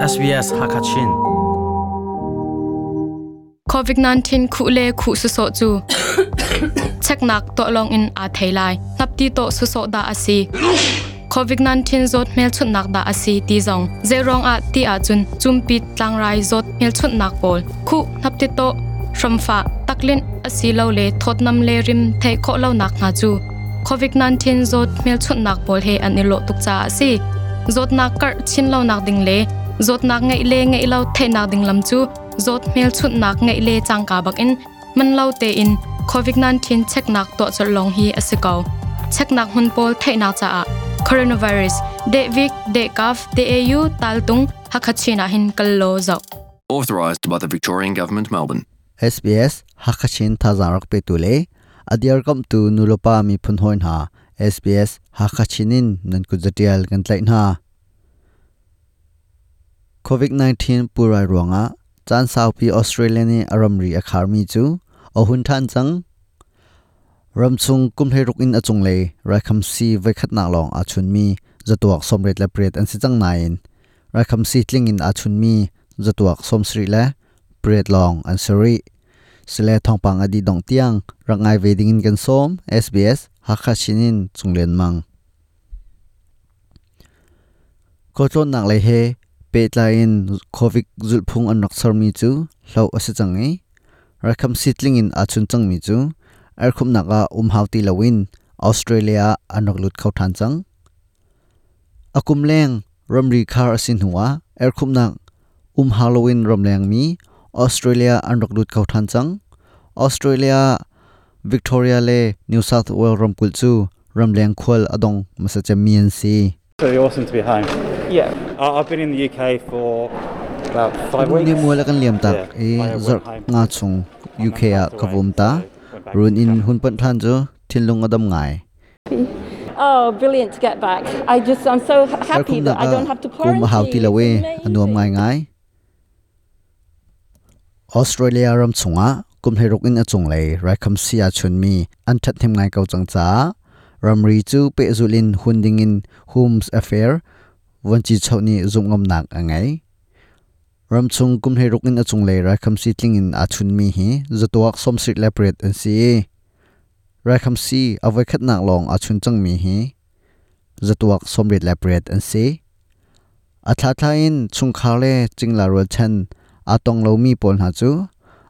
SBS Hakachin. COVID-19 khuh le khuh sawsawh cu cheknak tuah lawng in aa thei lai. Hnapti tawh sawsawh dah a si. COVID-19 zawt hmelchunhnak dah a si ti zong zeiruang ah ti ahcun cumpit tlangrai zawt hmelchunhnak pawl khuh hnapti tawh hramfah taklinh asilole thawtnam le rim theih khawh lonak hna cu COVID-19 zawt hmelchunhnak pawl he an i lawh tuk caah a si. Zawtnak karh chin lonak ding le zawtnak ngeih le ngeih lo theihnak ding lam cu zawt hmelchunhnak ngeih le cangka bakin man lo tein COVID-19 cheknak tuah colh lawng hi a si ko. Cheknak hmun pawl theihnak caah coronavirus dehvik dehkaf deau taltung Hakha-Chin ah hin kal law zoh. Authorised by the Victorian Government, Melbourne. SBS Hakachin thazaang rak petu le a dirkamhtu nulepa miphun hawi hna SBS Hakachin in nan kut zatial kan tlaih hna. COVID-19 pulrai ruangah caan saupi Australia nih a ramri a kharmi cu a hun ṭhan cang. Ramchung kum 16 in a cunglei raikhamsi voikhatnak lawng aa chunmi zatuak 88 an si cang nain raikhamsi tling in aa chunmi zatuak 78 lawng an si rih. Sile thawngpang a dih dongh tiang rak ngai ve dingin kan sawm. SBS Hakha Chin in Cung Lian Mang. Khualtlawnnak lei he pehtlai in COVID zulhphung an rak sermi cu hloh a si cang i raikhamsi tling in aa chun cangmi cu erhkhumhnak ah um hau ti loin Australia ah an rak lut kho ṭhan cang. A kum leng ramri khar a si hnuah erhkhumhnak um hau loin ramlengmi Australia an rak lut kho ṭhan cang. Australia, Victoria le New South Wales ramkulh cu ramleng khual a dong hmasa cemmi an si. Pretty awesome to be home. Yeah. I've been in the UK for about 5 weeks. Ni mual a kan liam tak i zarh nga chung UK ah ka vum ta. Run in hun panh ṭhan cu thinlung a dam ngai. Oh, brilliant to get back. I just I'm so happy that I don't have to quarantine. Kum a hau ti lo i a nuam ngaingai. Australia ram chungah kum 16 in a cunglei raikhamsi aa chunmi an ṭhathnem ngai ko cang caah ramri cu pehzulh in hun dingin Homes Affair vuanci choh nih zumhngamnak a ngei. Ramchung kum 16 in a cunglei raikhamsi tling in aa chunmi hi zatuak 78 an si i raikhamsi a voikhatnak lawng aa chun cangmi hi zatuak 88 an si. A thlathla in chungkhar le cingla rualchan aa tong lomi pawl hna cu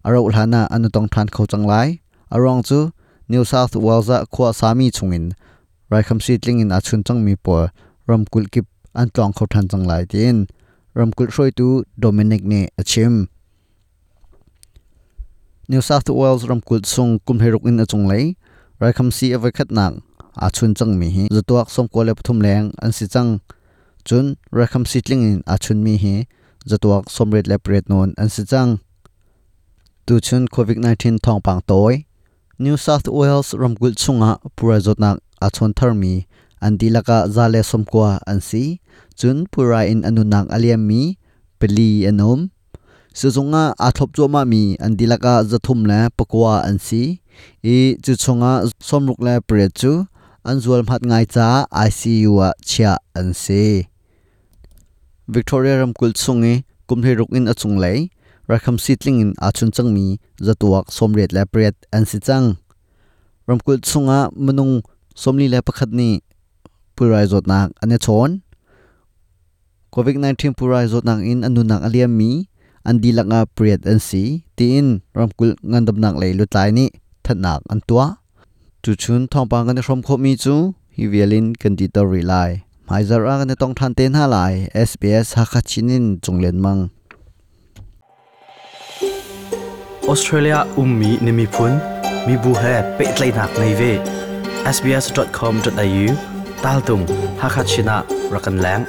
a rauh hlan ah an i tong ṭhan kho cang lai. A ruang cu New South Wales ah khua a sami chungin raikhamsi tling in aa chun cangmi pawl ramkulh kip an tlawng kho ṭhan cang lai tiin ramkulh hruaitu Dominic nih a chim. New South Wales ramkulh chung kum 16 in a cunglei raikhamsi a voikhatnak aa chun cangmi hi zatuak 93 leng an si cang. Cun raikhamsi tling in aa chunmi hi zatuak 88 nawn an si cang. Tuchun COVID-19 thawngpang tawi New South Wales ramkulh chungah pulrai zawtnak aa chawn tharmi an dihlak ah 190 an si. Cun pulrai in a nunnak a liammi 4 an um. Sizung ah aa thlop cuahmahmi an dihlak ah 309 an si i cu chungah 68 cu an zualhmat ngai caah ICU ah chiah an si. Victoria ramkulh chung i kum 16 in a cunglei raikhamsi tling in aa chun cangmi zatuak 88 an si cang. Ramkulh chungah minung 41 nih pulrai zawtnak an i chawn. COVID-19 pulrai zawtnak in an nunnak a liammi an dihlak ah pariat an si, tiin ramkulh ngandamnak lei lutlai nih thanhnak an tuah. Tuchun thawngpang kan i hrawm khawhmi cu hi vial in kan dihter rih lai. Hmaizarh ah kan i tong ṭhan te hna lai. SBS Hakha Chin in Cung Lian Mang. Australia ummi na miphun, mibu he pehtlaihnak ngei ve. sbs.com.au taltung Hakha Chin ah rak kan leng.